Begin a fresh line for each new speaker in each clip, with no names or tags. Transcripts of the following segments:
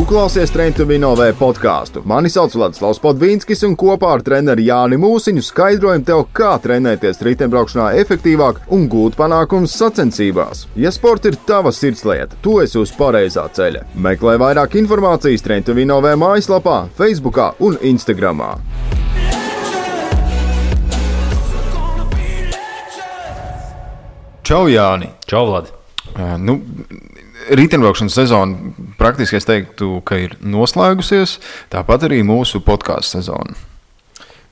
klausies Train to Win OV podcastu. Mani sauc Vladislavs Podvīnskis un kopā ar treneri Jāni Mūsiņu skaidrojam tev, kā trenēties riteņbraukšanā efektīvāk un gūt panākumus sacensībās. Ja sports ir tava sirdslieta, tu esi uz pareizā ceļa. Meklē vairāk informācijas Train to Win OV mājaslapā, Facebookā un Instagramā.
Čau, Jāni!
Čau, Vladi!
Riteņbraukšanas sezona praktiski es teiktu, ka ir noslēgusies, tāpat arī mūsu podcastu sezona.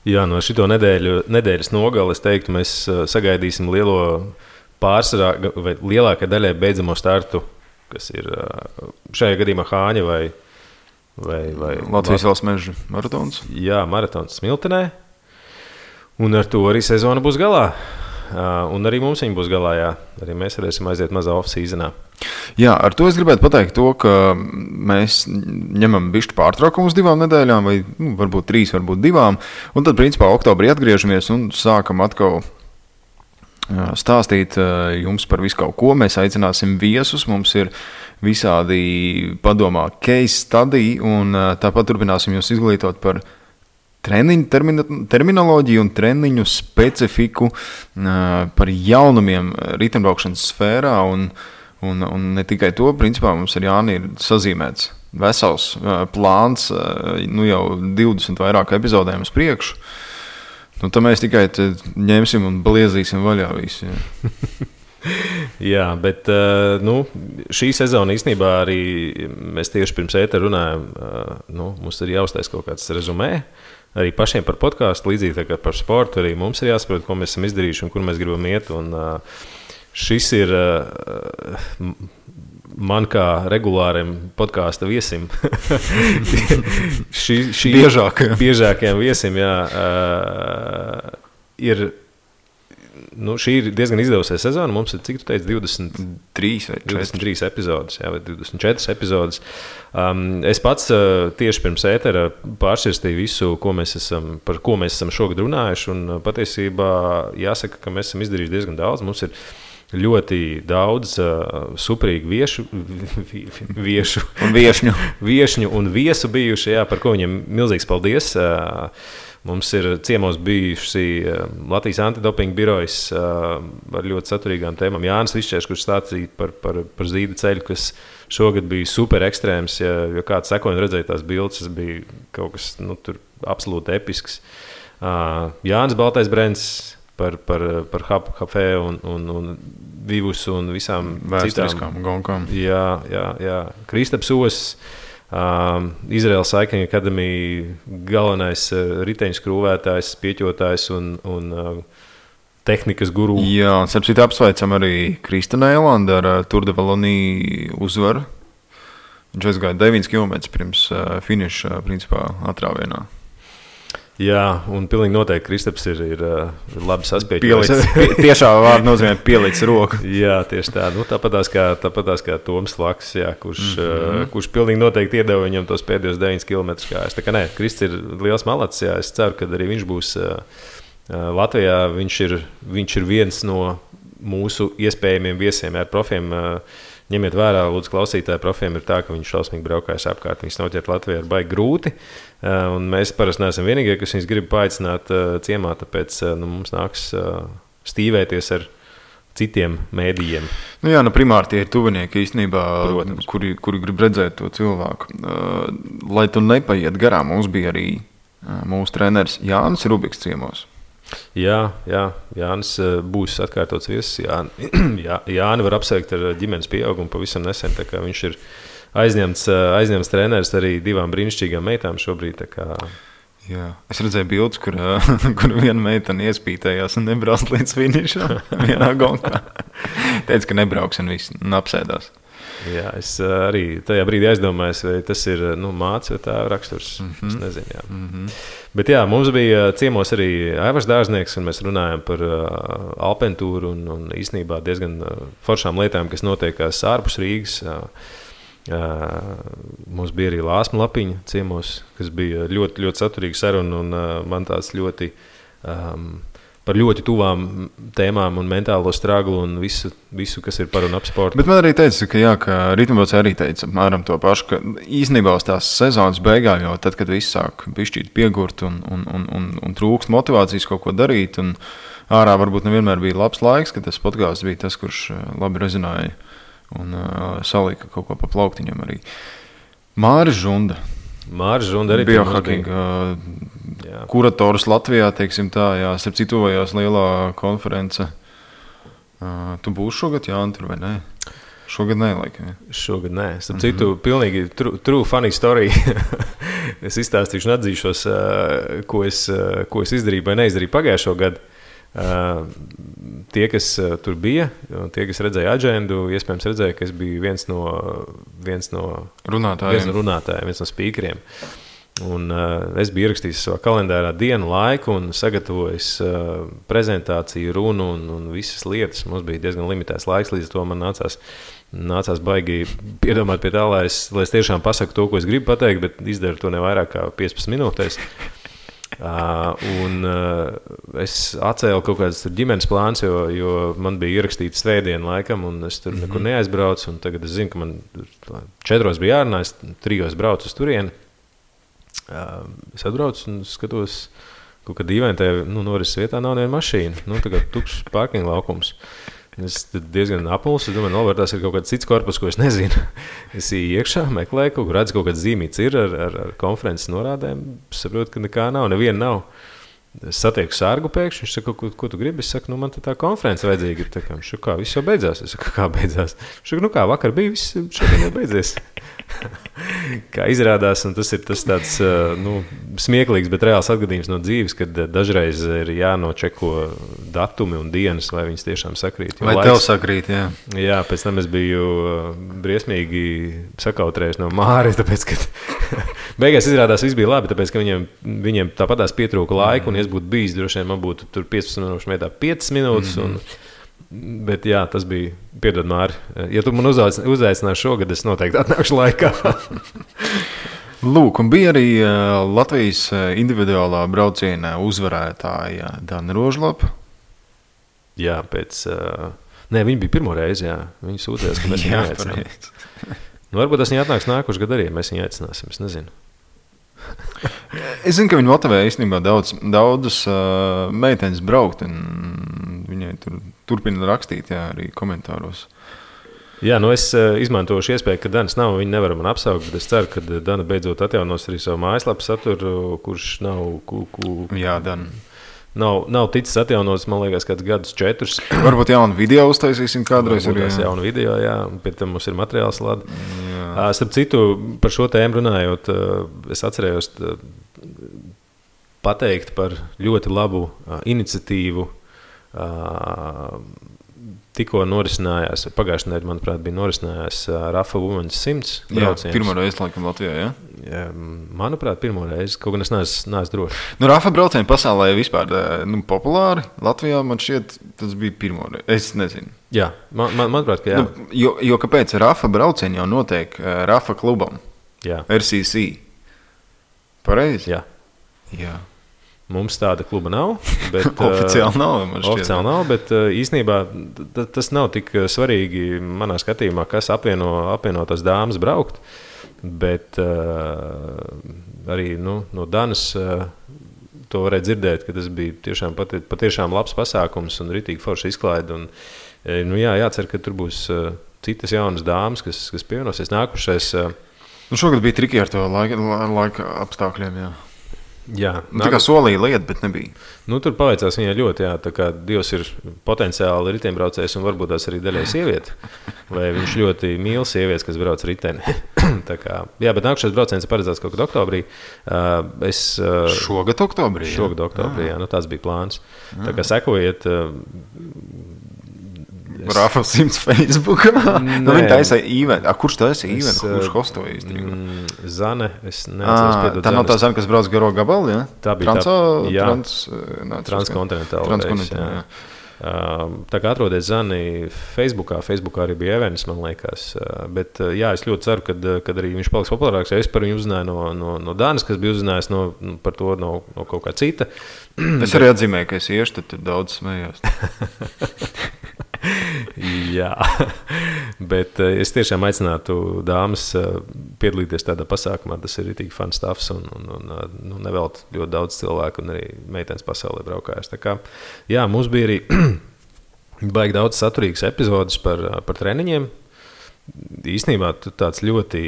Jā, no šito nedēļas nogali es teiktu, mēs sagaidīsim lielo pārsvarā vai lielākai daļai beidzamo startu, kas ir šajā gadījumā Hāņa vai
Latvijas valsts meža maratons.
Jā, maratons Smiltenē. Un ar to arī sezona būs galā. Un arī mums viņa būs galā, jā. Arī mēs varēsim aiziet mazā off-seasonā.
Jā, ar to es gribētu pateikt to, ka mēs ņemam bišķi pārtraukumu uz 2 nedēļām, vai varbūt 3, varbūt 2. Un tad, principā, oktobrī atgriežamies un sākam atkal stāstīt jums par visu kaut ko. Mēs aicināsim viesus, mums ir visādi padomā case study, un tāpat turpināsim jūs izglītot par treniņu terminoloģiju un treniņu specifiku, par jaunumiem riteņbraukšanas sfērā, un ne tikai to, principā mums ar Jāni ir sazīmēts vesels plāns, jau 20 vairāk epizodēm uz priekšu. Tad mēs tikai ņemsim un bliezīsim vaļā visu.
Jā, bet šī sezona īstenībā arī mēs tieši pirms ētera runājam, mums ir jāuztais kaut kāds rezumē. Arī pašiem par podcastu, līdzīgi tā kā par sportu, arī mums ir jāsaprot, ko mēs esam izdarījuši un kur mēs gribam iet. Un šis ir man kā regulāriem podkāsta viesim. Biežākajiem viesim, jā, ir. Šī ir diezgan izdevusies sezona. Mums ir, cik tu teici, 23 epizodes, jā, vai 24 epizodes. Es pats tieši pirms ētera pārsirstīju visu, par ko mēs esam šogad runājuši. Un patiesībā jāsaka, ka mēs esam izdarījuši diezgan daudz. Mums ir ļoti daudz superīgu viešņu un viesu bijuši, jā, par ko viņiem milzīgs paldies. Mums ir ciemos bijuši Latvijas antidopinga birojas ar ļoti saturīgām tēmām. Jānis Višķērs, kurš stāstīja par zīda ceļu, kas šogad bija super ekstrēms. Ja kāds sekoja un redzēja tās bildes, tas bija kaut kas tur absolūti episks. Jānis Baltais Brents par Hapfē un Vivus un visām
vēsturiskām gonkām.
Jā. Kristaps Osis. Izraels Cycling Academy galvenais riteņu skrūvētājs, pieķotājs un tehnikas guru.
Jā, un starpcīt apsveicam arī Kristana Eilanda ar Tour de Wallonie uzvaru. Viņš aizgāja 9 km pirms finiša, principā, atrāvienā.
Jā, un pilnīgi noteikti Kristaps ir labi saspieķojis.
Tiešā vārda nozīmē pielicis roku.
Jā, tieši tā. Tāpatās kā Toms Laks, jā, kurš pilnīgi noteikti iedeva viņam tos pēdējos 9 km kājas. Tā kā nē, Krists ir liels malacis, jā. Es ceru, ka arī viņš būs Latvijā. Viņš ir viens no mūsu iespējamiem viesiem ar profiem. Ņemiet vērā, lūdzu, klausītāji, profiem ir tā, ka viņš šausmīgi braukājas apkārt. Viņus noķert Latvijā ir baigi grūti. Un mēs parasti neesam vienīgie, kas viņus grib paaicināt ciemā, tāpēc mums nāks stīvēties ar citiem mēdījiem.
Primāri tie ir tuvinieki īstenībā, kuri grib redzēt to cilvēku. Lai tu nepaiet garām, mums bija arī mūsu treneris Jānis Rubiks ciemos.
Jā, Jānis būs atkārtots viesis. Jāni var apsveikt ar ģimenes pieaugumu pavisam nesen, tā kā viņš ir aizņemts treneris arī 2 brīnišķīgām meitām šobrīd. Tā kā...
Jā. Es redzēju bildes, kur viena meitene iespītējās un nebrauc līdz finišam vienā gonkā. Teica, ka nebrauks un viss apsēdās.
Jā, es arī tajā brīdī aizdomājos, vai tas ir mātes vai tā raksturs. Es nezinu, jā. Bet jā, mums bija ciemos arī Aivars Dārznieks, un mēs runājam par alpentūru un īstenībā diezgan foršām lietām, kas notiekās ārpus Rīgas. Mums bija arī Lāsma Lapiņa ciemos, kas bija ļoti, ļoti saturīga saruna, un man tāds ļoti par ļoti tuvām tēmām un mentālo straglu un visu, kas ir par un ap sportu.
Bet man arī teica, ka ritmbraucēji arī teica apmēram to pašu, ka īstenībā uz tās sezonas beigās, jau tad, kad viss sāk bišķīt piegurt un trūkst motivācijas kaut ko darīt, un ārā varbūt nevienmēr bija labs laiks, ka tas podkāsts bija tas, kurš labi rezonēja un salika kaut ko pa plauktiņam arī. Māris Žunda arī biohackinga kurators Latvijā, teiksim tā, jā, starp citu tuvojās lielā konference. Tu būsi šogad, Jāni, tur vai ne? Šogad nē, laikam.
Šogad nē. Starp citu, pilnīgi true funny story. Es izstāstīšu un atzīšos, ko es izdarīju vai neizdarīju pagājušo gadu. Tie, kas tur bija, tie, kas redzēja aģendu, iespējams redzēja, ka es biju viens no runātājiem, viens no spīkeriem. Un es biju ierakstījis savā kalendārā dienu, laiku un sagatavojis prezentāciju, runu un visas lietas. Mums bija diezgan limitēts laiks, līdz to man nācās baigi piedomāt pie tā, lai es tiešām pasaku to, ko es gribu pateikt, bet izdaru to ne vairāk kā 15 minūtēs. Es atcēlu kaut kādas ģimenes plāns, jo man bija ierakstīts svētdienu laikam, un es tur nekur neaizbraucu. Tagad es zinu, ka man 4 bija jārunā, es 3 braucu uz turieni. Es atbraucu un skatos, kaut kā dīvaini tajā norises vietā nav neviena mašīna. Tagad tukšs parkinga laukums. Es diezgan apmulsu, es domāju, novērtās ir kaut kāds cits korpus, ko es nezinu. Es ieju iekšā, meklēju, redzu, kaut kāds zīmīts ir ar konferences norādēm. Es saprotu, ka nekā nav, neviena nav. Es satieku sārgu pēkšņi, viņš saka, ko tu gribi? Es saku, man tā konference vajadzīga. Viņš saka, kā, viss jau beidzās? Es saku, kā beidzās? Viņš saka, kā, vakar bija, viss šodien jau beidzies. Kā izrādās, un tas ir tāds smieklīgs, bet reāls atgadījums no dzīves, kad dažreiz ir jānočeko datumi un dienas, vai viņas tiešām sakrīt.
Vai tev sakrīt, jā.
Jā, pēc tam es biju briesmīgi sakautrējis no Māri, tāpēc, ka beigās izrādās viss bija labi, tāpēc, ka viņiem tāpatās pietrūka laiku, un es būtu bijis, droši vien man būtu tur 15 minūšu vietā 5 minūtes, bet jā, tas bija, piedod Māri, ja tu man uzaicināsi šogad, es noteikti atnākšu laikā.
Lūk, un bija arī Latvijas individuālā brauciena uzvarētāja Dana Rožlapa.
Jā, viņa bija pirmo reizi, jā. Viņa sūtījās, ka mēs viņu neaicinām. Varbūt tas viņa atnāks nākošu gadu arī, mēs viņu aicināsim, es nezinu.
Es zinu, ka viņi motivē īstenībā daudzas meitenes braukt, un viņai turpina rakstīt, jā, arī komentāros.
Jā, es izmantošu iespēju, ka Danas nav, viņi nevar man apsaukt, bet es ceru, ka Dana beidzot atjaunos arī savu mājaslapu saturu, kurš nav...
Jā, Dana.
Nav ticis atjaunots, man liekas, kāds gadus 4.
Varbūt jaunu video uztaisīsim kādreiz arī.
Jaunu video, jā, pie tam mums ir materiāls lada. Starp citu, par šo tēmu runājot, es atcerējos pateikt par ļoti labu iniciatīvu. Tikko norisinājās, pagājušajā nedēļā, manuprāt, bija norisinājās Rafa Women's 100 brauciens.
Jā, pirmo reizi laikam Latvijā, jā?
Jā, manuprāt, pirmo reizi, kaut gan es neesmu droši.
Rafa braucieni pasaulē vispār populāri. Latvijā man šķiet, tas bija pirmo reizi. Es nezinu.
Jā, manuprāt, ka jā.
Jo kāpēc Rafa braucieni jau notiek Rafa klubam?
Jā.
RCC. Pareizi?
Jā.
Jā.
Mums tāda kluba nav. Bet,
oficiāli nav, man šķiet.
Oficiāli nav, bet īstenībā tas nav tik svarīgi manā skatījumā, kas apvieno tās dāmas braukt. Bet arī no Danas to varēja dzirdēt, ka tas bija patiešām labs pasākums un ritīgi forši izklaide. Jācer, ka tur būs citas jaunas dāmas, kas pievienosies. Nākušais...
šogad bija triki ar to laika apstākļiem, jā.
Jā,
tā kā solīja lieta, bet nebija.
Tur paveicās viņai ļoti, jā, tā kā Dievs ir potenciāli riteņbraucējs un varbūt tās arī daļai sieviete. Vai viņš ļoti mīl sievietes, kas brauc riteni. Jā, bet nākušais brauciens ir paredzēts kaut kad oktobrī.
Šogad oktobrī?
Šogad oktobrī, jā, tāds bija plāns. Tā kā sekojiet...
Rafa 100 Facebookā. Viņa taisa īventi. Kurš taisa īventi? Kurš hostoja īstenībā?
Zane, es neatceros piedot.
Tā nav tā Zane, kas brauc garo gabalu, jā?
Tā bija
transkontinentāla.
Jā. Tā kā atrodiet Zani Facebookā arī bija events, man liekas. Bet jā, es ļoti ceru, kad arī viņš paliks populārāks. Es par viņu uzzināju no Dānas, kas bija uzzinājis par to no kaut kā cita.
Es arī atzīmēju, ka es iešu, tad daudz smējos.
Jā, bet es tiešām aicinātu dāmas piedalīties tādā pasākumā. Tas ir tik fun stuffs un nevelt ļoti daudz cilvēku un arī meitenes pasaulē braukājas. Tā kā, jā, mums bija arī baigi daudz saturīgas epizodes par treniņiem. Īstenībā tāds ļoti,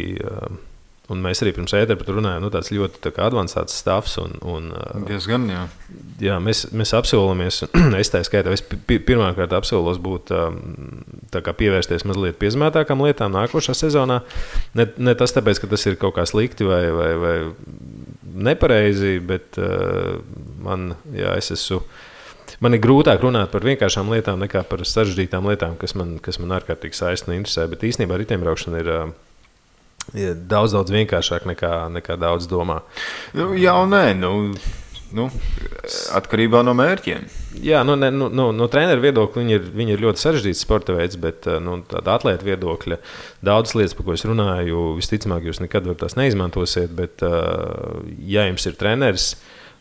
un mēs arī pirms ētera par to runājām, tāds ļoti tā kā advancēts stuffs.
Diezgan, jā.
Jā, mēs apsolamies, es tā skaitā, es pirmkārt apsolos būt tā kā pievērsties mazliet piezmētākām lietām nākošā sezonā. Ne tas tāpēc, ka tas ir kaut kā slikti vai nepareizi, bet man ir grūtāk runāt par vienkāršām lietām nekā par sarežģītām lietām, kas man ārkārtīgi saista un interesē. Bet īstenībā riteņbraukšana ir daudz vienkāršāk nekā daudz domā.
Jā un nē, atkarībā no mērķiem.
Jā, no treneru viedokļa viņi ir ļoti sarežģīts sporta veids, bet tāda atlēta viedokļa daudzas lietas, par ko es runāju, visticamāk jūs nekad tās neizmantosiet, bet ja jums ir treneris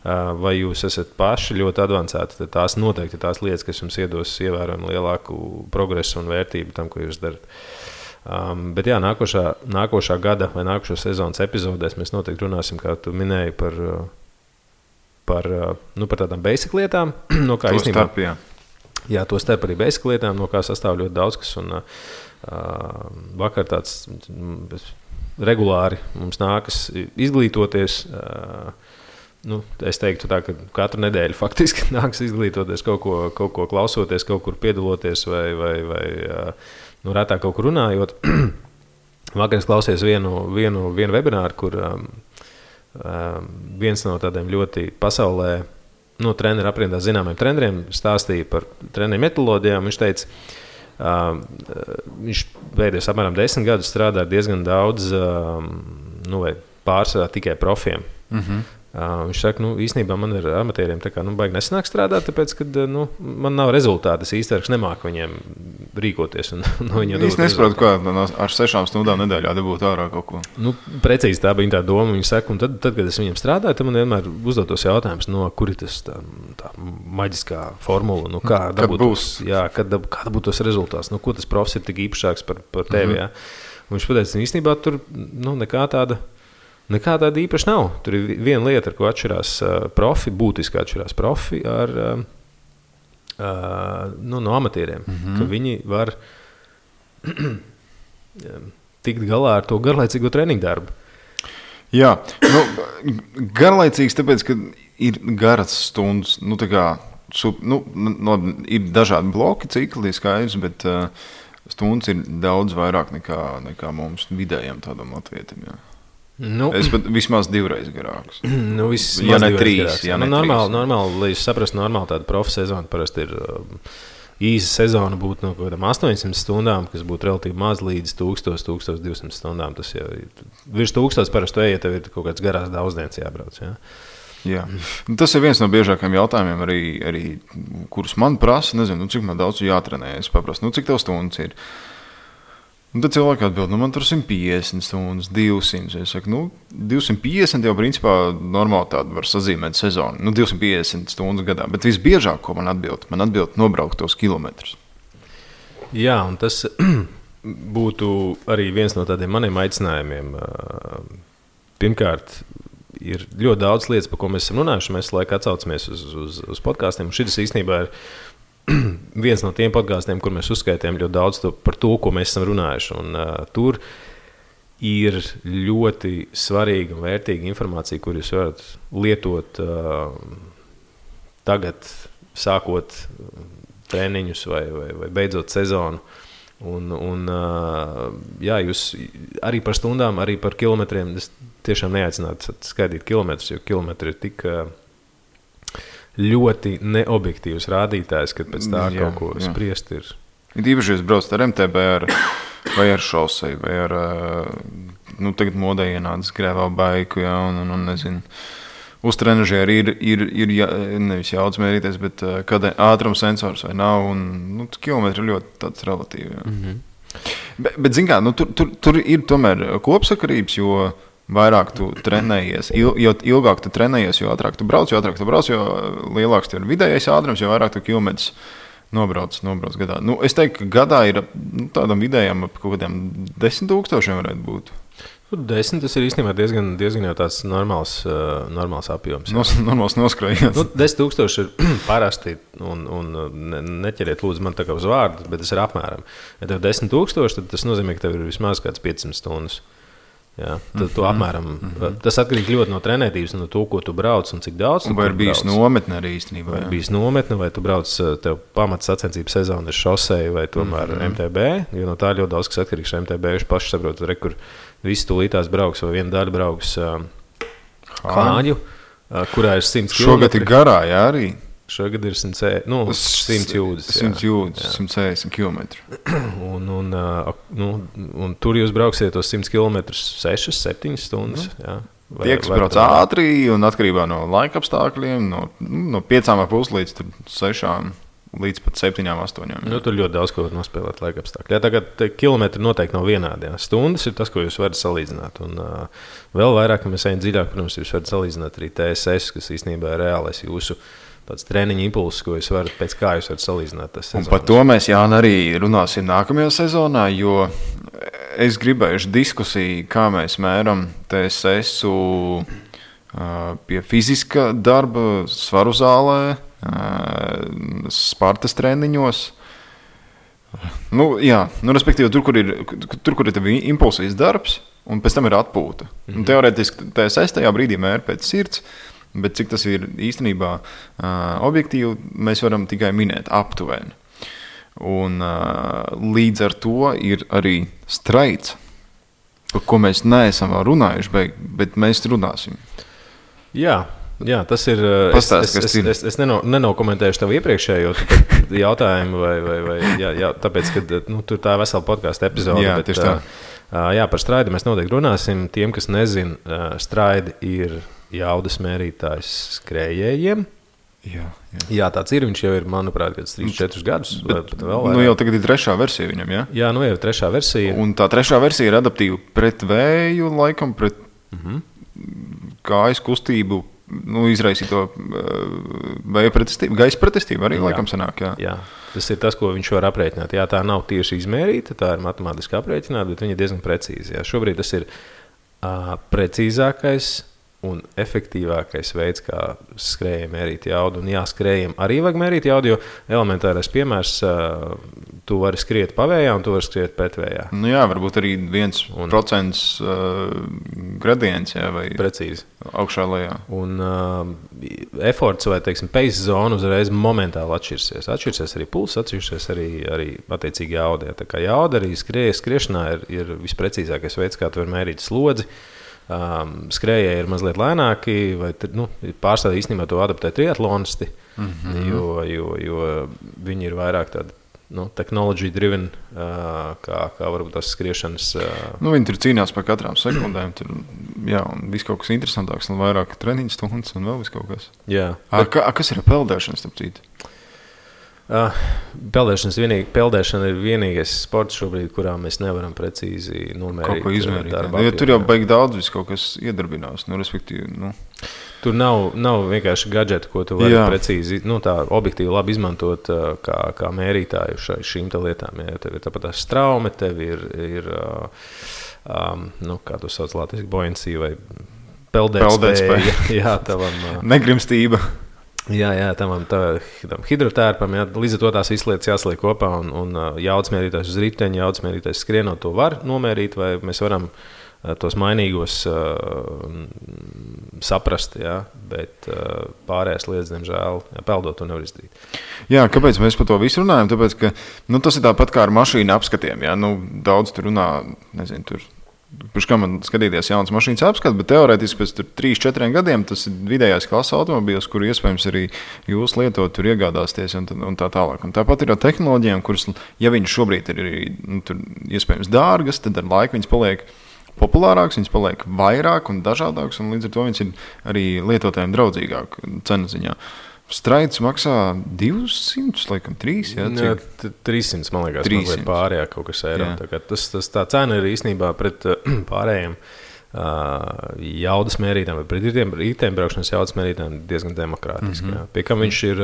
vai jūs esat paši ļoti advancēti, tad tās noteikti ir tās lietas, kas jums iedos ievērojami lielāku progresu un vērtību tam, ko jūs darat. Bet jā, nākošā gada vai nākošo sezonas epizodēs mēs noteikti runāsim, kā tu minēji, par tādām basic lietām, no kā īstenībā. Jā, to starp arī basic lietām, no kā sastāv ļoti daudz kas. Un vakar tāds regulāri mums nākas izglītoties. Es teiktu tā, ka katru nedēļu faktiski nākas izglītoties, kaut ko klausoties, kaut kur piedaloties vai retāk kaut kur runājot. Vakar es klausījos vienu webināru, kur viens no tādiem ļoti pasaulē treneru aprindā zināmiem treneriem stāstīja par treneru metodoloģijām. Viņš teica, viņš pēdējos apmēram 10 gadus strādā ar diezgan daudz, vai pārsvarā tikai profiem. Viņš saka, īstenībā man ar amatieriem baigi nesanāk strādāt, tāpēc, ka man nav rezultāti. Es īstenībā nemāku viņiem rīkoties.
Es nesaprotu, kā ar 6 stundām nedēļā dabūt ārā kaut ko.
Precīzi tā bija tā doma. Viņa saka, un tad, kad es viņiem strādāju, tad man vienmēr uzdotos jautājums, kur ir tas tā maģiskā formula, kā dabūt tos rezultātus, ko tas profs ir tik īpašāks par tevi. Jā. Viņš pateica, īstenībā tur nekā tāda īpaši nav. Tur ir viena lieta, ar ko atšķirās profi, būtiski atšķirās profi no amatieriem. Ka viņi var tikt galā ar to garlaicīgo treniņu darbu.
Jā, garlaicīgs tāpēc, ka ir garas stundas. Ir dažādi bloki, cikli, skaidrs, bet stundas ir daudz vairāk nekā mums vidējiem tādam latvietim. Jā. Es pat vismaz 2 reizes garāks.
Ja ne 3. Normāli, lai jūs saprastu, normāli tāda profa sezona parasti ir īsa sezona būtu no kaut kādām 800 stundām, kas būtu relatīvi maz līdz 1000-1200 stundām. Tas jau ir virs 1000 parasti ejiet, tev ir kaut kāds garās daudzdienas jābrauc. Jā.
Jā. Tas ir viens no biežākajiem jautājumiem, arī kurus man prasa. Nezinu, cik man daudz jātrenē. Es paprastu, cik tev stundas ir. Un tad cilvēki atbild, man tur 150 stundas, 200. Es saku, 250 jau principā normāli tādu var sazīmēt sezonu. 250 stundas gadā. Bet visbiežāk, ko man atbild nobraukt tos kilometrus.
Jā, un tas būtu arī viens no tādiem maniem aicinājumiem. Pirmkārt, ir ļoti daudz lietas, par ko mēs esam runājuši. Mēs laikā atsaucamies uz podkāstiem. Šis īstenībā ir viens no tiem podkāstiem, kur mēs uzskaitījām ļoti daudz par to, ko mēs esam runājuši. Un, tur ir ļoti svarīga un vērtīga informācija, kur jūs varat lietot tagad, sākot treniņus vai beidzot sezonu. Jā, jūs arī par stundām, arī par kilometriem. Es tiešām neaicinātu skaidīt kilometrus, jo kilometri ir tik ļoti neobjektīvs rādītājs, kad pēc tā kaut ko spriest ir.
Īpaši jūs braucat ar MTB vai ar šoseju, vai ar, tagad modē ienācis grēvā baiku, jā, un nezinu. uz trenažera ir nevis jaudas mērīties, bet kad ātrums sensors vai nav, un kilometri ir ļoti tāds relatīvi. Bet zin kā, tur ir tomēr kopsakarības, jo vairāk tu trenējies, jo ilgāk tu trenējies, jo ātrāk tu brauc, jo lielāks tev ir vidējais ātrums, jo vairāk tu kilometrus nobrauc gadā. Es teiktu, ka gadā ir tādam vidējam ap kaut kādiem 10,000 varētu būt.
10 tas ir īstenībā diezgan jau tāds normāls apjoms.
Normāls noskrējiens.
10,000 ir parasti, un neķeriet lūdzu man tā kā uz vārdu, bet tas ir apmēram. Ja tev 10,000, tad tas nozīmē, ka tev ir vismaz kāds 500 stundas. Jā, tad tu apmēram, tas atkarīgi ļoti no trenētības, no to, ko tu brauc un cik daudz tu brauc.
Vai ir bijis nometne arī īstenībā?
Vai ir bijis nometne, vai tu brauc, tev pamats sacensības sezona ir šoseja vai tomēr MTB, jo no tā ļoti daudz, kas atkarīgs no MTB, viņš paši saprot, kur visi tūlītās brauks vai viena daļa brauks Hāņu, kurā ir 100 km.
Šogad ir garā, jā, arī?
Šogad ir 100 jūdzes.
100 jūdzes, 160 km.
Un tur jūs brauksiet tos 100 km 6-7 stundas. Jā.
Tie, kas brauc ātri un atkarībā no laika apstākļiem, no 5,5 līdz 6 līdz pat 7-8.
Tur ļoti daudz ko var nospēlēt laika apstākļi. Jā, tagad kilometri noteikti nav vienādi. Jā. Stundas ir tas, ko jūs varat salīdzināt. Un vēl vairāk, ka mēs ejam dziļāk, protams, jūs varat salīdzināt arī TSS, kas īstenībā ir reālais jūsu tāds treniņa impulss, ko jūs varat, pēc kā jūs varat salīdzināt tas sezonas.
Un par to mēs, Jāni, arī runāsim nākamajā sezonā, jo es gribējuši diskusiju, kā mēs mēram TSS-u pie fiziska darba, svaru zālē, Spartas treniņos. Respektīvi, tur, kur ir tev impulsīs darbs, un pēc tam ir atpūta. Teorētiski TSS tajā brīdī mēra pēc sirds, bet cik tas ir īstenībā objektīvi, mēs varam tikai minēt aptuveni. Un līdz ar to ir arī straids, par ko mēs neesam vēl runājuši, bet mēs runāsim. Jā,
tas ir. Es nenokomentēšu tev iepriekšējo jautājumu, tāpēc, ka tur tā vesela podkāstu epizode.
Jā, tieši tā.
Par straidu mēs noteikti runāsim. Tiem, kas nezin, straidi ir jaudas mērītājs skrējējiem. Jā, tāds ir. Viņš jau ir, manuprāt, 3-4 gadus.
Jau tagad ir 3. versija viņam, jā? Jā,
jau ir 3. versija.
Un tā 3. versija ir adaptīva pret vēju, laikam, pret kājas kustību, izraisīto vēja pretestību, gaisa pretestību arī laikam sanāk, jā.
Tas ir tas, ko viņš var aprēķināt. Jā, tā nav tieši izmērīta, tā ir matemātiski aprēķināta, bet viņa ir diezgan precīzi. Jā. Šobrīd tas ir precīzākais un efektīvākais veids, kā skrējiem mērīt jaudu. Un skrējiem arī vajag mērīt jaudu, jo elementārais piemērs, tu vari skriet pavējā un tu vari skriet pretvējā.
Varbūt arī 1% gradients, vai
precīzi.
Augšā lejā.
Un efforts vai, pace zona uzreiz momentāli atšķirsies. Atšķirsies arī pulss, atšķirsies arī attiecīgi jauda. Tā kā jauda arī skriešanā ir visprecīzākais veids, kā tu vari mērīt slodzi. Skrējēji ir mazliet lēnāki, vai pārstāvji īstenībā to adaptē triatlonisti, jo viņi ir vairāk tādi technology driven, kā varbūt tās skriešanas.
Viņi tur cīnās par katrām sekundēm, un viss kaut kas interesantāks, un vairāk treniņu stundas, un vēl viss kaut kas.
Jā.
Kas ir peldēšana, starp citu?
Peldēšana ir vienīgais sports šobrīd, kurā mēs nevaram precīzi nomērīt.
Kaut ko izmērīt. Tur jau baigi daudz viss kaut kas iedarbinās. Respektīvi,
Tur nav vienkārši gadžeti, ko tu vari precīzi, tā objektīvi labi izmantot kā mērītāju šīm lietām. Ja tev ir tāpat tā straume, tev ir kā tu sauc latviski, buoyancy vai peldētspēja. Jā, tavam
negrimstība.
Jā, tam hidrotērpam, līdz ar to tās visas lietas jāsliek kopā, un jaudas mērītājs uz riteņa, jaudas mērītājs skrienot to var nomērīt, vai mēs varam tos mainīgos saprast, bet pārējās lietas, diemžēl, peldot to nevar izdarīt.
Jā, kāpēc mēs par to visu runājam? Tāpēc, ka tas ir tāpat kā ar mašīnu apskatiem. Daudz tur runā, nezinu, tur. Pirms kā man skatīties jaunas mašīnas apskatu, bet teorētiski pēc 3-4 gadiem tas ir vidējās klases automobīls, kuru iespējams arī jūs lietot, tur iegādāsties un tā tālāk. Un tāpat ir ar tehnoloģijām, kuras, ja viņas šobrīd ir tur iespējams dārgas, tad ar laiku viņas populārāks, viņas paliek vairāk un dažādāks, un līdz ar to viņas ir arī lietotājiem draudzīgāk cenu ziņā. Straids maksā 200, laikam 3, jā?
Jā, 300, man liekas, 300. Mazliet pārējā kaut kas eiro. Tā cena ir īstenībā pret pārējiem jaudas mērītājiem, vai pret riteņbraukšanas jaudas mērītājiem diezgan demokrātiski. Pie kam viņš ir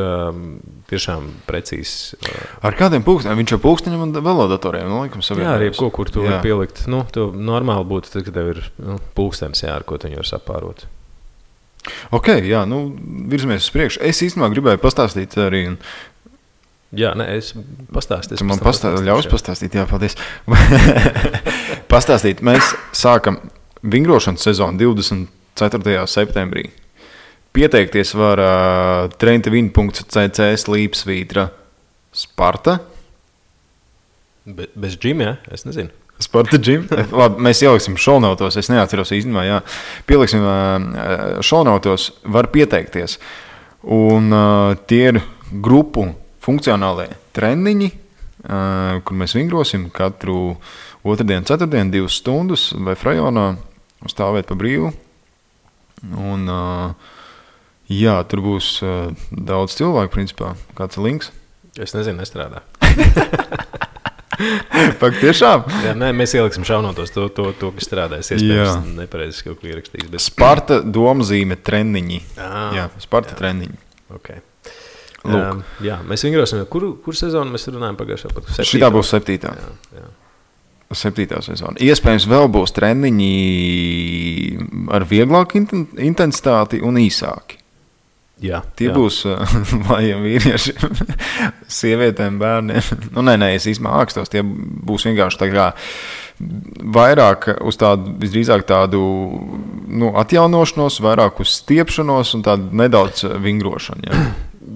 tiešām precīzs.
Ar kādiem pulksteņiem? Viņš jau pulksteņiem un velodatoriem, laikam, savienojums.
Jā, arī kur tu vari pielikt. Tu normāli būtu, tad, kad tev ir pulkstenis, ar ko tu viņu var sapārot.
Ok, jā, virzamies uz priekšu. Es īstenībā gribēju pastāstīt arī.
Jā, es pastāstīju.
Tu man ļaus pastāstīt, jā, paldies. Pastāstīt, mēs sākam vingrošanas sezonu 24. septembrī. Pieteikties var traintevin.cc/Sparta.
Bez džima, jā? Es nezinu.
Sparta džim. Labi, mēs ieliksim šounautos, es neatceros īstenībā, jā. Pieliksim šounautos, var pieteikties. Un tie ir grupu funkcionālie treniņi, kur mēs vingrosim katru otrdienu, ceturtdienu, 2 stundas vai frajonā stāvēt pa brīvu. Un jā, tur būs daudz cilvēku, principā. Kāds ir links?
Es nezinu, nestrādā.
Pak tiešām?
Jā, mēs ieliksim šaunotos to kas strādājas. Iespējams, nepareizi kaut ko ierakstīs. Bet...
Sparta domzīme treniņi. Jā, Sparta treniņi.
Okay. Jā, mēs vingrosim. Kur sezonu mēs runājam pagājušā?
Šitā būs 7. Jā. 7. sezona. Iespējams, vēl būs treniņi ar vieglāku intensitāti un īsāki.
Jā,
tie būs vājiem vīriešiem, sievietēm, bērniem. Es īstenībā ākstos, tie būs vienkārši tā kā vairāk uz tādu, visdrīzāk tādu atjaunošanos, vairāk uz stiepšanos un tādu nedaudz vingrošanu.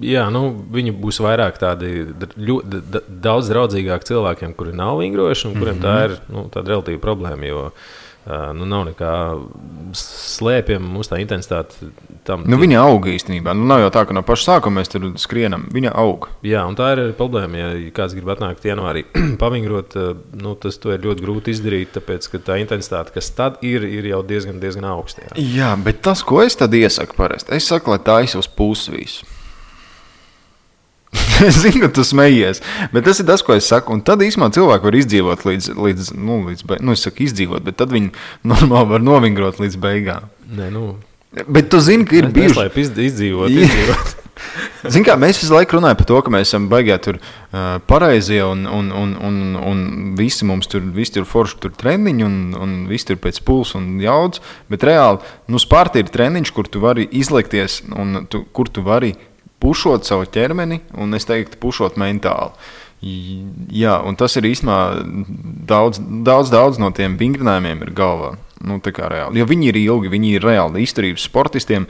Jā, viņi būs vairāk tādi daudz draudzīgāki cilvēkiem, kuri nav vingrojuši un kuriem tā ir tāda relatīva problēma, jo nav nekā slēpjam, mums tā intensitāte tam.
Viņa aug īstenībā. Nav jau tā, ka no paša sākuma mēs tur skrienam. Viņa aug.
Jā, un tā ir problēma. Ja kāds grib atnākt janvārī pavingrot, to ir ļoti grūti izdarīt, tāpēc, ka tā intensitāte, kas tad ir jau diezgan augsta.
Jā, bet tas, ko es tad iesaku parasti, es saku, lai tā uz pusi visu. Es zinu, ka tu smejies, bet tas ir tas, ko es saku. Un tad īstenībā cilvēki var izdzīvot līdz es saku izdzīvot, bet tad viņi normāli var novingrot līdz beigām. Bet tu zini, ka ir bijuši...
Izdzīvot.
Zini kā, mēs visu laiku runājam par to, ka mēs esam baigā tur pareizie un visi mums tur forši tur treniņi un visi tur pēc pulsa un jaudas, bet reāli, Sparta ir treniņš, kur tu vari izlikties un kur tu vari pušot savu ķermeni, un es teiktu, pušot mentāli. Jā, un tas ir īstenībā daudz no tiem vingrinājumiem ir galvā. Tā kā reāli. Jo viņi ir ilgi, viņi ir reāli izturības sportistiem.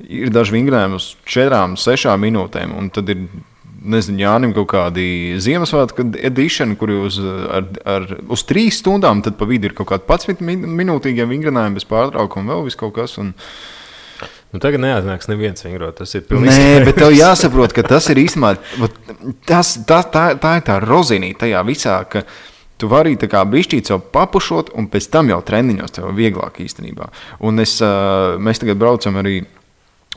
Ir daži vingrinājumi uz 4-6 minūtēm, un tad ir, Jānim kaut kādi Ziemassvētku edition, kuri uz 3 stundām, tad pa vidu ir kaut kādi 11 minūtīgie vingrinājumi bez pārtraukuma, vēl viss kaut kas, un
tagad neatnāks neviens vingrot, tas ir pilnīgi.
Nē, bet tev jāsaprot, ka tas ir īstenībā, tā ir tā rozinīte tajā visā, ka tu vari tā kā bišķīt sev papušot, un pēc tam jau treniņos tev vieglāk īstenībā. Un mēs tagad braucam arī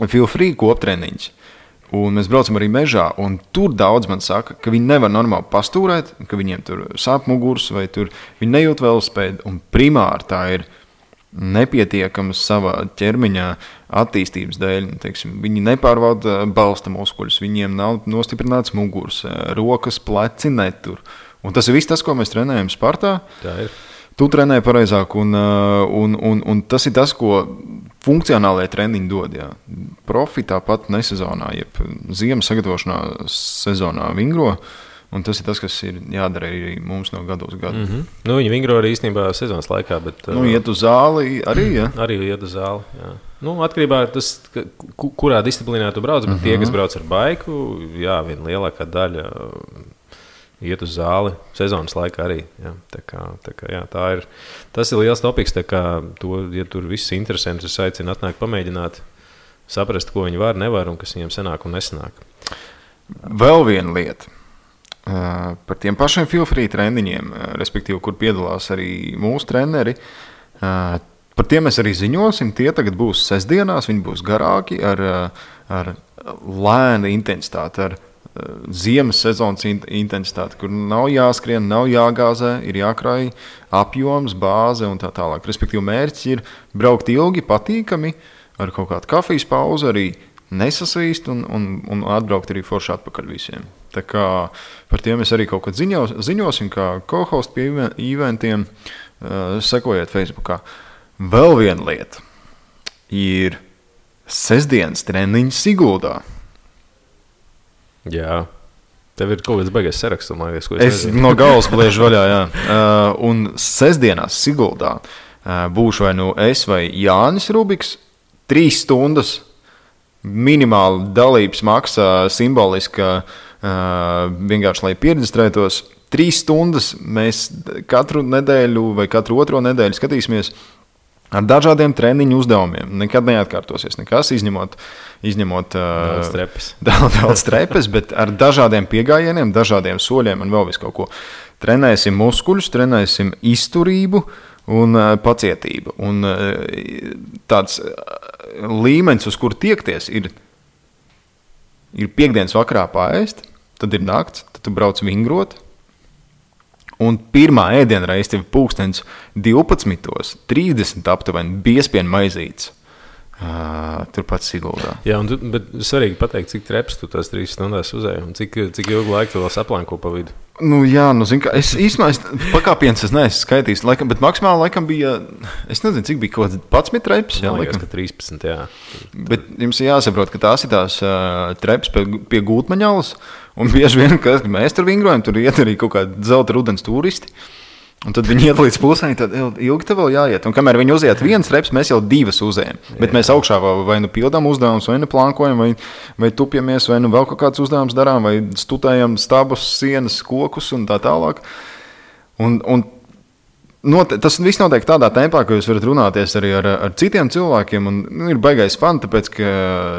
Feel Free koptreniņus, un mēs braucam arī mežā, un tur daudz man saka, ka viņi nevar normāli pastūrēt, ka viņiem tur sāp muguras, vai tur viņi nejūt velospēdu, un primāri tā ir nepietiekams savā ķermeņa attīstības dēļ. Viņi nepārvalda balsta muskuļus, viņiem nav nostiprināts muguras, rokas, pleci netur. Un tas ir viss tas, ko mēs trenējam Spartā.
Tā ir.
Tu trenē pareizāk, un tas ir tas, ko funkcionālajie treniņi dod. Jā. Profi tāpat nesezonā, jeb ziemas sagatavošanā sezonā vingro. Un tas ir tas, kas ir jādara arī mums no gadu uz gadu.
Viņi vingro arī īstenībā sezonas laikā. Bet,
iet uz zāli arī, jā?
Arī iet uz zāli, jā. Atkarībā no tas, kurā disciplīnā tu brauc, bet tie, kas brauc ar baiku, jā, viena lielākā daļa iet uz zāli sezonas laikā arī. Jā. Tā kā, jā, tas ir liels topiks, tā kā ja tur viss interesants, es aicinu atnākt pamēģināt, saprast, ko viņi var, nevar un kas viņiem sanāk un nesanāk.
Vēl viena lieta. Par tiem pašiem Feel Free treniņiem, respektīvi, kur piedalās arī mūsu treneri, Par tiem mēs arī ziņosim. Tie tagad būs sestdienās, viņi būs garāki ar lēnu intensitāti, ar ziemas sezonas intensitāti, kur nav jāskrien, nav jāgāzē, ir jākrāj apjoms, bāze un tā tālāk. Respektīvi, mērķis ir braukt ilgi, patīkami, ar kaut kādu kafijas pauzi, arī nesasvīst un atbraukt arī forši atpakaļ visiem. Tā kā par tiem mēs arī kaut kad ziņosim, kā co-host pie eventiem, sekojiet Facebookā. Vēl viena lieta ir sestdienas treniņš Siguldā.
Jā. Tev ir kaut kāds baigais saraksts, man liekas, ko
es no galvas bliežu vaļā, jā. Un sestdienās Siguldā būšu vai nu es vai Jānis Rubiks, 3 stundas minimāli dalības maksa simboliska, vienkārši, lai pieregistrētos. 3 stundas mēs katru nedēļu vai katru otro nedēļu skatīsimies ar dažādiem treniņu uzdevumiem. Nekad neatkārtosies nekas, izņemot daudz trepes, bet ar dažādiem piegājieniem, dažādiem soļiem un vēl visu kaut ko. Trenēsim muskuļus, trenēsim izturību un pacietību. Un tāds līmenis, uz kur tiekties, ir piekdienas vakarā paēst, tad ir nakts, tad tu brauc vingrot. Un pirmā ēdienreize tev pulkstens 12:30 aptuveni biespienu maizītes. Turpat Siguldā.
Jā, bet svarīgi pateikt, cik treps tu tās 3 stundās uzēji un cik ilgu laiku tu vēl saplanko pa vidu.
Zinu, kā es īstenībā pakāpiens es neesmu skaitījis, bet maksimāli laikam bija, es nezinu, cik bija kaut kāds 11 treps.
Jā, liekas, ka 13, jā.
Bet jums ir jāsaprot, ka tās ir tās treps pie Gultmaņalas, un bieži vien, kad mēs tur vingrojam, tur iet arī kaut kādi zelta rudens turisti. Un tad viņi iet līdz pusēm, tad ilgi tev vēl jāiet. Un kamēr viņi uziet 1 treps, mēs jau 2 uzējam. Bet mēs augšā vai nu pildām uzdevumus, vai nu plankojam, vai tupjamies, vai nu vēl kaut kāds uzdevums darām, vai studējam stabus, sienas, kokus un tā tālāk. Tas viss notiek tādā tempā, ka jūs varat runāties arī ar citiem cilvēkiem. Un ir baigais fun, tāpēc ka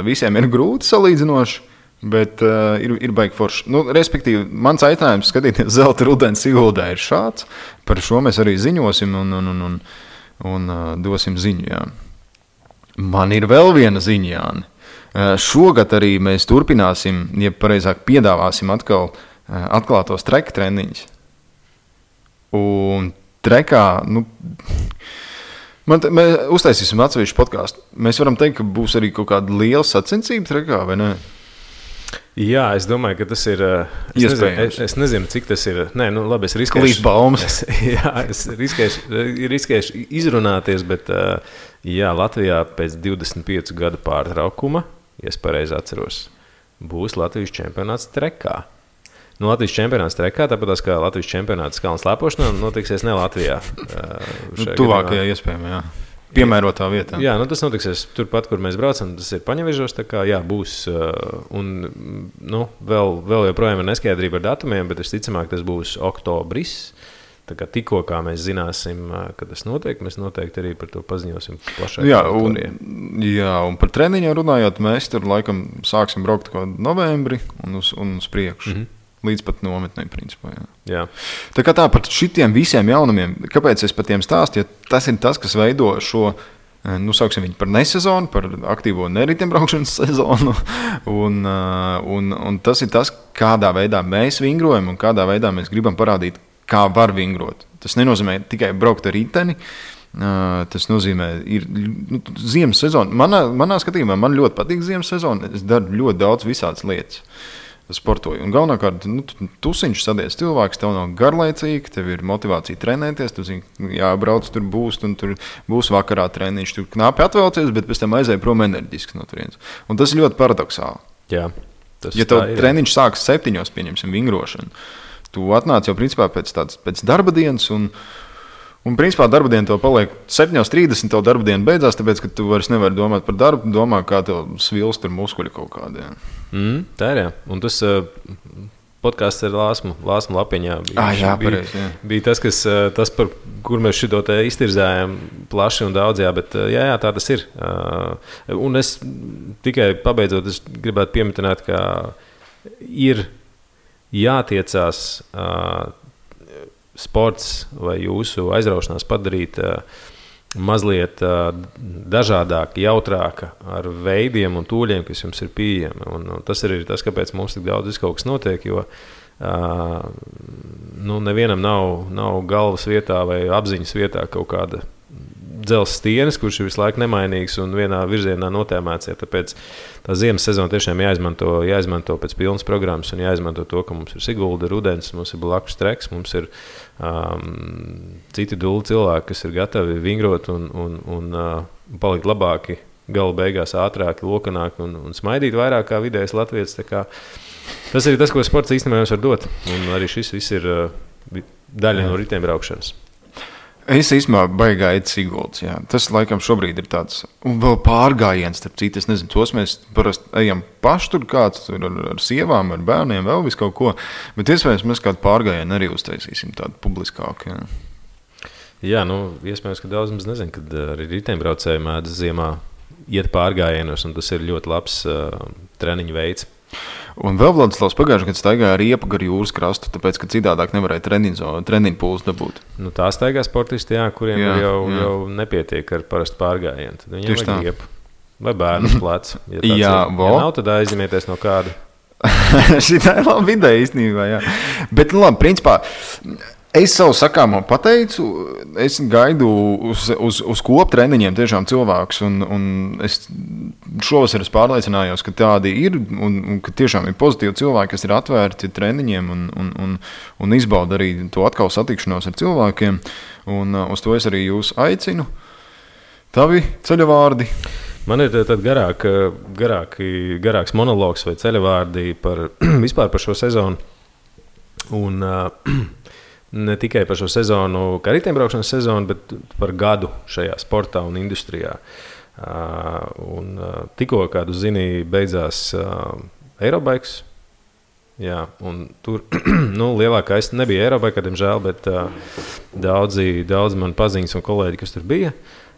visiem ir grūti salīdzinoši. Bet ir baigi forši. Respektīvi, mans aicinājums skatīties zelta rudens Siguldā ir šāds. Par šo mēs arī ziņosim un dosim ziņu. Jā. Man ir vēl viena ziņa, Jāni. Šogad arī mēs turpināsim, ja pareizāk piedāvāsim atkal atklātos treka treniņus. Un trekā, mēs uztaisīsim atsevišķu podcastu. Mēs varam teikt, ka būs arī kaut kāda liela sacensība trekā, vai ne?
Jā, es domāju, ka tas ir iespējams. Es nezinu, cik tas ir. Nē, labi, es riskēšu.
Klīst baumas.
Es riskēšu izrunāties, bet jā, Latvijā pēc 25 gadu pārtraukuma, ja es pareizi atceros, būs Latvijas čempionāts trekā. Latvijas čempionāts trekā, tāpat kā Latvijas čempionāts kalnu slēpošanā, notiksies ne Latvijā.
Tuvākajā iespējamā, jā. Piemērotā vietā.
Jā, tas notiksies turpat, kur mēs braucam. Tas ir Paņevežos, tā kā jā, būs. Un vēl joprojām ir neskaidrība ar datumiem, bet visticamāk tas būs oktobris. Tā kā tikko kā mēs zināsim, kad tas notiek, mēs noteikti arī par to paziņosim plašāk.
Jā, un par treniņiem runājot, mēs tur laikam sāksim braukt kaut novembri un uz priekšu. Mm-hmm. Līdz pat nometnē, principā.
Jā.
Tā kā tā par šitiem visiem jaunumiem, kāpēc es par tiem stāstu, ja tas ir tas, kas veido šo, sauksim viņu par nesezonu, par aktīvo neriteņbraukšanas sezonu, un tas ir tas, kādā veidā mēs vingrojam un kādā veidā mēs gribam parādīt, kā var vingrot. Tas nenozīmē tikai braukt ar riteni, tas nozīmē, ir ziemas sezona. Manā skatījumā man ļoti patīk ziemas sezona, es daru ļoti daudz visādas lietas. Sportoju. Un galvenokārt, tusiņš sadies cilvēks, tev nav garlaicīgi, tev ir motivācija trenēties, tu zini, jābrauc, tur būs, un tur būs vakarā treniņš, tur knapi atvelcies, bet pēc tam aizēja prom enerģiski no turienes. Un tas ir ļoti paradoxāli.
Jā,
ja tev treniņš sākas 7, pieņemsim, vingrošanu, tu atnāc jau principā pēc darba dienas, un principā darba diena tev paliek 7:30, tev darba diena beidzās, tāpēc, ka tu vairs nevari domāt par darbu, domā, kā tev svilst tur muskuļi kaut kādi.
Tā ir, jā. Un tas podcasts ar Lāsmu Lapiņā bija tas, par kur mēs šito te iztirzājām plaši un daudz, jā, bet jā, tā tas ir. Un es tikai pabeidzot, es gribētu pieminēt, ka ir jātiecās sports vai jūsu aizraušanās padarīt mazliet dažādāka, jautrāka ar veidiem un tūļiem, kas jums ir pieejami. Un tas arī ir tas, kāpēc mums tik daudz kaut kas notiek, jo nevienam nav galvas vietā vai apziņas vietā kaut kāda dzelzs stienis, kurš ir visu laiku nemainīgs un vienā virzienā notēmēts. Ja, tāpēc tā ziemas sezona tiešām jāizmanto pēc pilnas programmas un jāizmanto to, ka mums ir Sigulda, rudens, mums ir blakus treks, mums ir citi duli cilvēki, kas ir gatavi vingrot un palikt labāki, gala beigās ātrāki, lokanāki un smaidīt vairāk kā vidējais latvietis. Tas ir tas, ko sports īstenībā jums var dot. Un arī šis viss ir daļa no riteņbraukšanas.
Es īstenībā baigāju Siguldas. Tas laikam šobrīd ir tāds un vēl pārgājiens, starp citu. Es nezinu, tos mēs parasti ejam paši tur kāds tur ar sievām, ar bērniem, vēl visu kaut ko. Bet iespējams mēs kādu pārgājienu arī uztaisīsim tādu publiskāku.
Jā, iespējams, ka daudz mums nezin, kad arī riteņbraucēji mēdz ziemā iet pārgājienos, un tas ir ļoti labs treniņu veids.
Un vēl Vladislavs pagājušajā gadā staigāja riepu gar jūras krastu, tāpēc, ka citādāk nevarēja treniņu pulsu dabūt.
Tā staigā sportisti, kuriem jau nepietiek ar parastu pārgājienu. Tad viņiem vajag riepu vai bērnu plecu. Ja nav, tad aizņemieties no kāda.
Šī tā ir laba ideja īstenībā, jā. Bet, labi, principā, es savu sakāmo pateicu, es gaidu uz koptreniņiem tiešām cilvēkus, un es šovasar pārliecinājos, ka tādi ir, un ka tiešām ir pozitīvi cilvēki, kas ir atvērti treniņiem un izbauda arī to atkal satikšanos ar cilvēkiem, un uz to es arī jūs aicinu. Tavi ceļavārdi?
Man ir tad garāks monologs vai ceļavārdi vispār par šo sezonu, un ne tikai par šo sezonu, kā riteņbraukšanas sezonu, bet par gadu šajā sportā un industrijā. Tikko, kādu zini, beidzās Eurobikes. Jā, un tur lielākais nebija Eurobike, diemžēl, bet daudzi man paziņas un kolēģi, kas tur bija,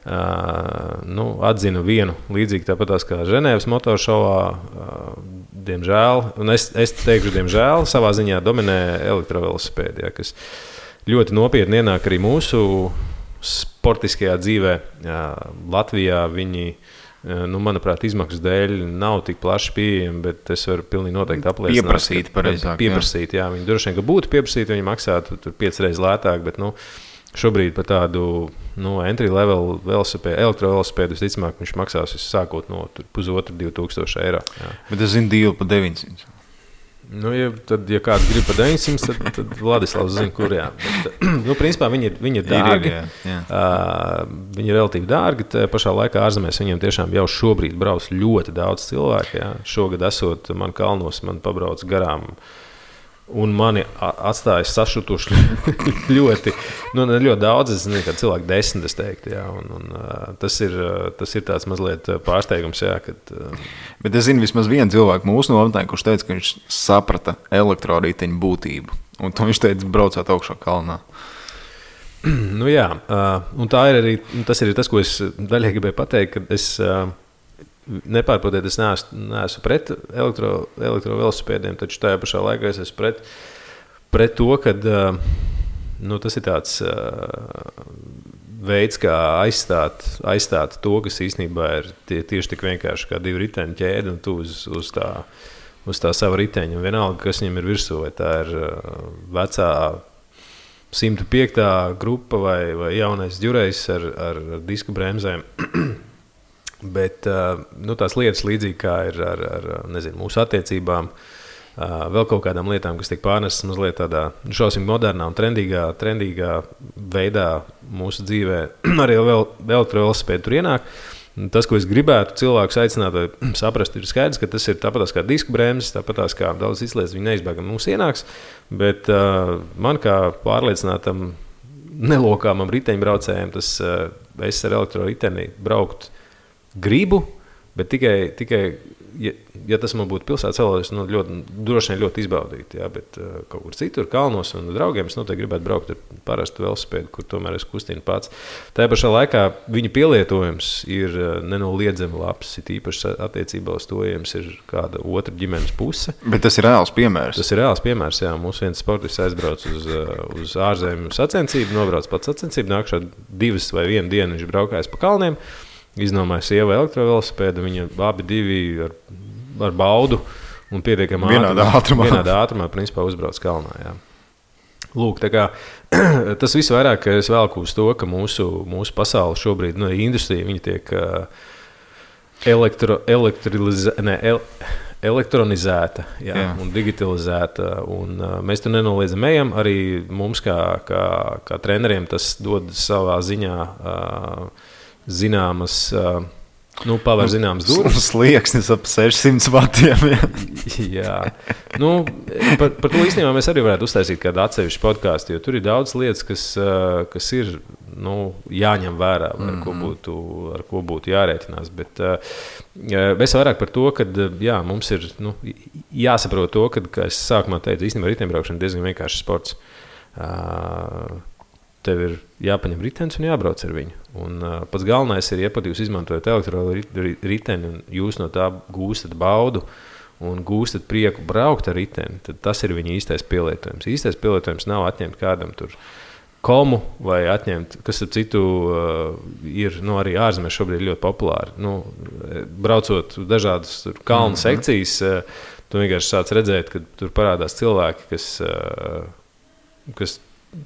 atzina vienu līdzīgi tāpatās kā Ženēvas motoršovā. Diemžēl, un es teikšu, diemžēl, savā ziņā dominē elektrovelosipēdi, kas ļoti nopietni ienāk arī mūsu sportiskajā dzīvē. Latvijā viņi, manuprāt, izmaksu dēļ nav tik plaši pieejami, bet es varu pilnīgi noteikti apliecināt. Pieprasīt, jā. Viņi droši vien, ka būtu pieprasīti, viņi maksātu 5 reizes lētāk, bet, šobrīd par tādu entry-level elektrovelosipēdu visticamāk viņš maksās sākot no 1,5–2,000 eiro. Jā.
Bet es zinu dīlu par 900.
Ja kāds grib par 900, tad Vladislavs zina, kur jā. Bet, principā viņi ir dārgi. Viņi ir relatīvi dārgi. Pašā laikā ārzemēs viņiem tiešām jau šobrīd brauc ļoti daudz cilvēku. Jā. Šogad esot man kalnos, man pabrauc garām. Un mani atstāja sašutuši ļoti daudz. Es nezinu, ka cilvēki 10, es teiktu. Jā, un tas ir tāds mazliet pārsteigums. Jā, kad,
Bet es zinu vismaz vienu cilvēku mūsu nometnē, kurš teica, ka viņš saprata elektroriteņu būtību. Un to viņš teica, braucot augšā kalnā.
Jā, un tā ir arī tas, ko es daļai gribēju pateikt, ka es nepārprotiet, es neesmu pret elektrovelosipēdiem, taču tajā pašā laikā es esmu pret to, ka tas ir tāds veids, kā aizstāt to, kas īstenībā ir tieši tik vienkārši kā 2 riteņu ķēde un tu uz tā sava riteņa. Vienalga, kas viņam ir virsū, vai tā ir vecā 105. grupa vai jaunais ģurejs ar disku bremzēm. Bet tās lietas līdzīgi kā ir ar mūsu attiecībām, vēl kaut kādām lietām, kas tiek pārnestas mazliet tādā šausmīgi modernā un trendīgā veidā mūsu dzīvē, arī vēl elektrovelosipēdi tur ienāk. Tas, ko es gribētu cilvēkus aicināt vai saprast, ir skaidrs, ka tas ir tāpatās kā disku bremzes, tāpatās kā daudz izlietas, viņi neizbēgami mums ienāks, bet man kā pārliecinātam nelokāmam riteņbraucējiem, es ar elektroriteni braukt gribu, bet tikai ja tas man būtu pilsētas celojums, droši vien ļoti izbaudīt, jā, bet kaut kur citur, kalnos un draugiem, es noteikti gribētu braukt ar parastu velosipēdu, kur tomēr es kustinu pats. Tajā pašā laikā viņa pielietojums ir nenoliedzami labs, it īpaši attiecībā uz to, ja jums ir kāda otra ģimenes puse.
Bet tas ir reāls piemērs.
Tas ir reāls piemērs, jā. Mums viens sportists aizbrauc uz ārzemju sacensību, nobrauc pats sacensību, nākšā 2 vai 1 dienu viņš braukājis pa kalniem, iznomāja sieva elektrovelosipēdu, viņa abi divi ar baudu un pietiekami
vienādā
ātrumā principā uzbrauc kalnā, jā. Lūk, tā kā tas viss vairāk es velku uz to, ka mūsu pasaule šobrīd, industrija, viņa tiek elektronizēta, jā. Un digitalizēta, un mēs tur nenoliedzam ejam, arī mums kā treneriem tas dod savā ziņā zināmas, paver zināmas durvis.
Slieksnis ap 600 vatiem.
Jā. Par to īstenībā mēs arī varētu uztaisīt kādu atsevišķu podcastu, jo tur ir daudz lietas, kas ir jāņem vērā, ar ko būtu jārēķinās. Bet mēs vairāk par to, ka mums ir jāsaprot to, ka es sākumā teicu, īstenībā riteņbraukšana diezgan vienkāršs sports. Tev ir jāpaņem ritenis un jābrauc ar viņu. Un pats galvenais ir, ja pat jūs izmantojat elektroriteni un jūs no tā gūstat baudu un gūstat prieku braukt ar riteni, tad tas ir viņa īstais pielietojums. Īstais pielietojums nav atņemt kādam tur komu vai atņemt, kas ar citu ir arī ārzemēs šobrīd ļoti populāri. Braucot dažādas kalnu sekcijas, tu vienkārši sāc redzēt, ka tur parādās cilvēki, kas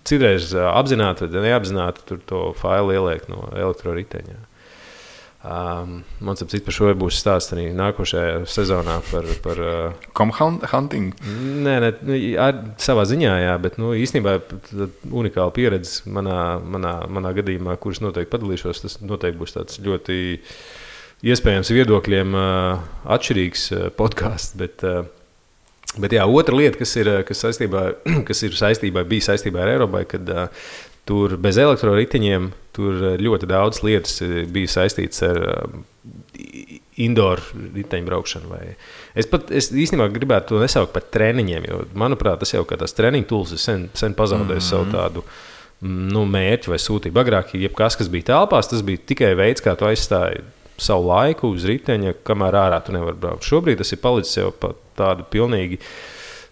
citreiz apzināti vai neapzināti tur to failu ieliek no elektroriteņa. Man ap citu par šo būs stāsts arī nākošajā sezonā par
Comhunting?
Nē, savā ziņā, jā, bet īstenībā unikāla pieredze manā gadījumā, kuras noteikti padalīšos, tas noteikti būs tāds ļoti iespējams viedokļiem atšķirīgs podcasts, Bet jā, otra lieta, kas bija saistībā ar Eiropai, kad tur bez elektroriteņiem tur ļoti daudz lietas bija saistītas ar indoor riteņbraukšanu. Es īstenībā gribētu to nesaukt par treniņiem, jo, manuprāt, tas jau kā tās treniņu tools ir sen pazaudējis savu tādu mērķi vai sūtību. Agrāk, jebkas, kas bija telpās, tas bija tikai veids, kā tu aizstāji savu laiku uz riteņa, kamēr ārā tu nevar braukt. Šobrīd tas ir palicis jau pa tādu pilnīgi,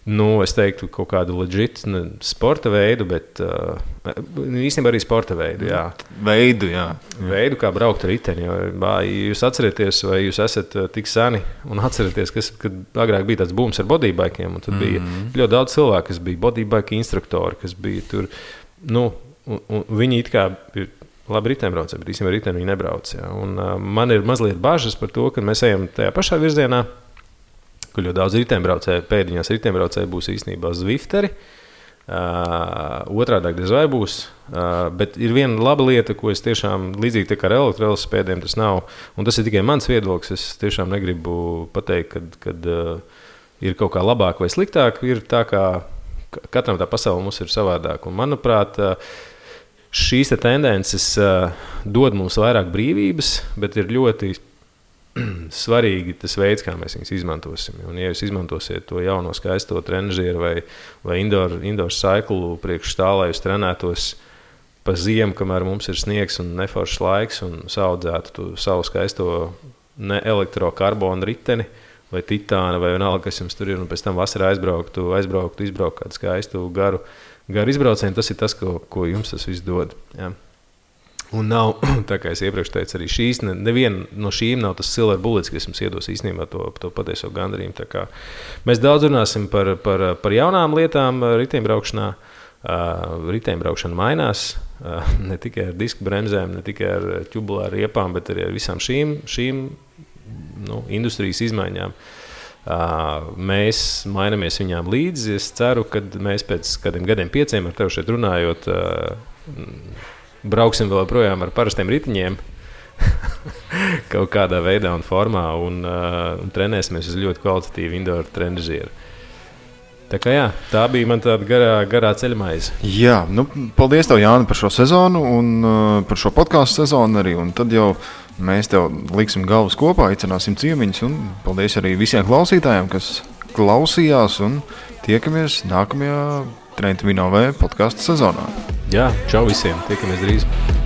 es teiktu, kaut kādu legit sporta veidu, bet īstenībā arī sporta veidu, jā. Veidu, kā braukt ar riteni. Jūs atcerieties, vai jūs esat tik seni un atcerieties, kad agrāk bija tāds booms ar bodybaikiem, un tad bija ļoti daudz cilvēku, kas bija bodybike instruktori, kas bija tur, un viņi it kā ir labi riteņbraucēji, bet īstenībā riteni viņi nebrauc. Jā. Un man ir mazliet bažas par to, ka mēs ejam tajā pašā virzienā, kur ļoti daudz riteņbraucēji, pēdiņās riteņbraucēji būs īstenībā zvifteri, otrādāk diez vai būs, bet ir viena laba lieta, ko es tiešām līdzīgi kā ar elektrovelosipēdiem tas nav, un tas ir tikai mans viedoklis, es tiešām negribu pateikt, kad ir kaut kā labāk vai sliktāk, ir tā kā katram tā pasaule mums ir savādāk, un manuprāt, šīs tendences dod mums vairāk brīvības, bet ir ļoti svarīgi tas veids, kā mēs viņus izmantosim. Un, ja jūs izmantosiet to jauno skaisto trenažieru vai indoor cycle priekš tā, lai jūs trenētos pa ziemu, kamēr mums ir sniegs un neforšs laiks un saudzētu savu skaisto elektrokarbonu riteni vai titāna vai vienalga, kas jums tur ir, un pēc tam vasarā izbraukt kādu skaistu garu izbraucienu, tas ir tas, ko jums tas viss dod. Jā. Un nav, tā kā es iepriekš teicu, arī neviena no šīm nav tas silver bullets, kas jums iedos īstenībā to patieso gandarījumu. Tā kā mēs daudz runāsim par jaunām lietām riteņbraukšanā. Riteņbraukšana mainās, ne tikai ar disku bremzēm, ne tikai ar ķubulāru riepām, bet arī ar visām šīm industrijas izmaiņām. Mēs mainamies viņām līdzi. Es ceru, ka mēs pēc kādiem gadiem 5 ar tevi šeit runājot, brauksim vēl projām ar parastiem ritiņiem kaut kādā veidā un formā un trenēsimies uz ļoti kvalitatīvu indoor trenažieru. Tā kā jā, tā bija man tāda garā ceļmaize.
Jā, nu, paldies tev, Jāni, par šo sezonu un par šo podkāstu sezonu arī. Un tad jau mēs tev liksim galvas kopā, aicināsim ciemiņus. Un paldies arī visiem klausītājiem, kas klausījās. Un tiekamies nākamajā Trenta Vino V podkāstu sezonā.
Jā, čau visiem, tiekamies drīz.